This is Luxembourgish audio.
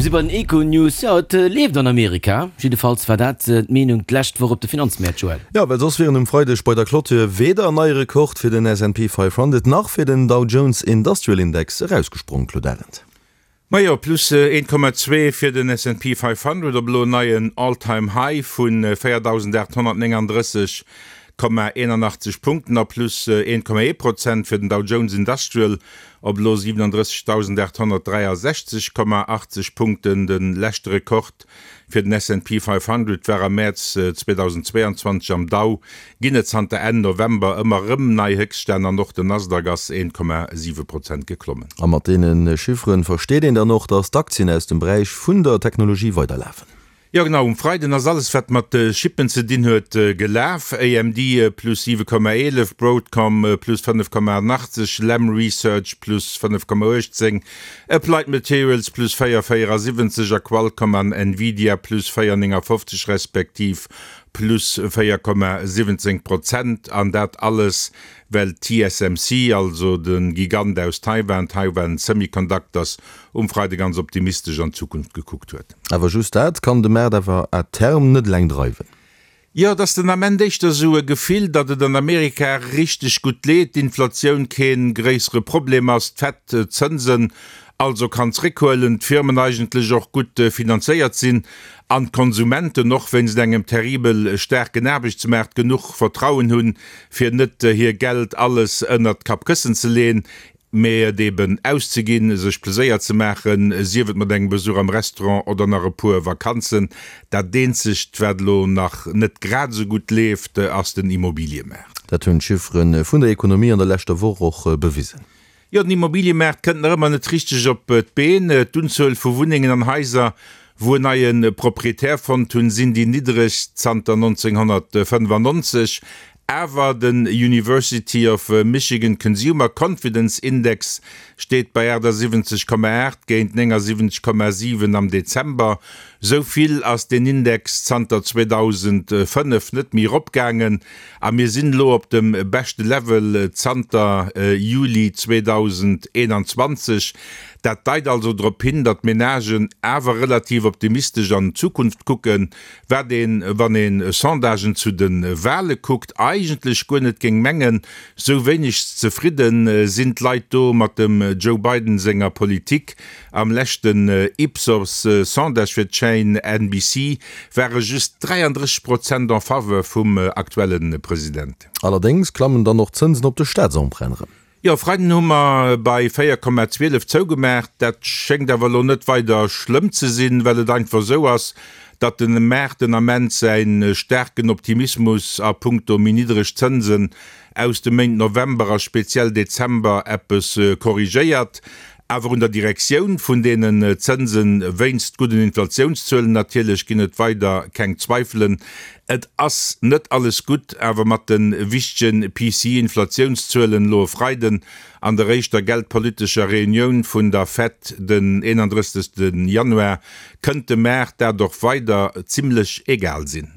Mir si bei den Econews. Jo, et leeft an Amerika. Jiddefalls war dat d'Meenung d'lescht Woch op de Finanzmäert, Joël. Jo, well soss wieren um Freideg bei der Clôture weder en neie Rekord fir den S&P 500 nach fir den Dow Jones Industrial Index erausgesprong, Claude Arend. Majo, plus 1,2 fir den S&P 500 op elo en neien All-Time High vu 4.839,81 Punkten a plus 1,1 Prozent fir den Dow Jones Industrial op elo 37.863,80 Punkten. De leschte Rekord fir den S&P 500 war am Mäerz 2022. Am Dow ginn et zanter Enn November ëmmer erëm nei Héchststänn an och den Nasdaq ass 1,7 Prozent geklommen. A mat deene Chiffere versteet een dann och, datt d'Aktien aus dem Beräich vun der Technologie weiderlafen. Jo genau, um Freiden ass alles wat mat Chippen ze dinn huet gelaf. AMD plus 7,11, Broadcom plus 5,80, Lam Research plus 5,18, Applied Materials plus 4,74 a Qualcomm an Nvidia plus 4,59 respektiv plus 4,17 Prozent. An dat alles well TSMC, also de Gigant aus Taiwan, Taiwan Semiconductors, um Freide ganz optimistesch an d'Zukunft gekuckt huet. Awer just dat kann de Maart awer à terme net eleng dreiwen. Jo, et ass den Ament éischter esou e Gefill, datt et an Amerika richteg gutt leet, d'Inflatioun kee gréissere Problem ass, d'Fed d'Zënsen also kann zréckhuelen, d'Firmen eigentlech och gutt finanzéiert sinn an d'Konsumenten och wéinst engem terribel staarken Aarbechtsmaart genuch Vertrauen hunn, fir net hir Geld alles ënnert d'Kappkëssen ze leen. Mee et eben auszeginn, sech Pleséier ze maachen, sief et mat engem Besuch am Restaurant oder nach e puer Vakanzen. Dat eenzegt, wat elo nach net grad esou gutt leeft, ass den Immobiliëmaart. Dat hunn d'Chiffere vun der Ekonomie an der leschter Woch och bewisen. Jo, den Immobiliëmaart kënnt nach ëmmer net richteg op d'Been. D'Unzuel vu Wunnengen an Haiser, wou en neie Proprietär fonnt hunn, sinn déi niddregst zanter 1995. Awer den University of Michigan Consumer Confidence Index steet bei 78,8 géint 79,7 am Dezember. Sou vill ass deen Index zanter 2005 net méi eropgaangen a mir sinn elo op dem beschte Level zanter Juli 2021. Dat deit also drop hin, datt d'Menagen awer relativ optimistesch an d'Zukunft kucken. Wat een, wann een Sondagen zu de Wale kuckt, eigentlech guer net géing mengen, sou wéineg zefridden sinn d'Leit do mat dem Joe Biden senger Politik. Am leschten Ipsos Sondage fir d'Chaîne NBC ware just 33 Prozent en faveur vum aktuelle President. Allerdéngs klammen dann och d'Zënsen op de Staatsemprunten erëm. Jo, Freiden hu mer bei 4,12 zougemaach. Dat schéngt awer elo net weider schlëmm ze sinn, well et einfach esou ass, datt de Maart den Ament säi staarken Optimismus a punkto méi niddreg Zënsen aus de Méint November a speziell Dezember eppes korrigéiert. Awer un der Direktioun vun deenen Zënsen, wéinst gudden Inflatiounszuelen natierlech, ginn et weider keng Zweifelen. Et ass net alles gutt, awer mat de wichtege PCE-Inflatiounszuelen elo e Freiden an der éischter geldpolitescher Reunioun vun der Fed den 31. Januar, kënnt dem Maart dat och weider zimmlech egal sinn.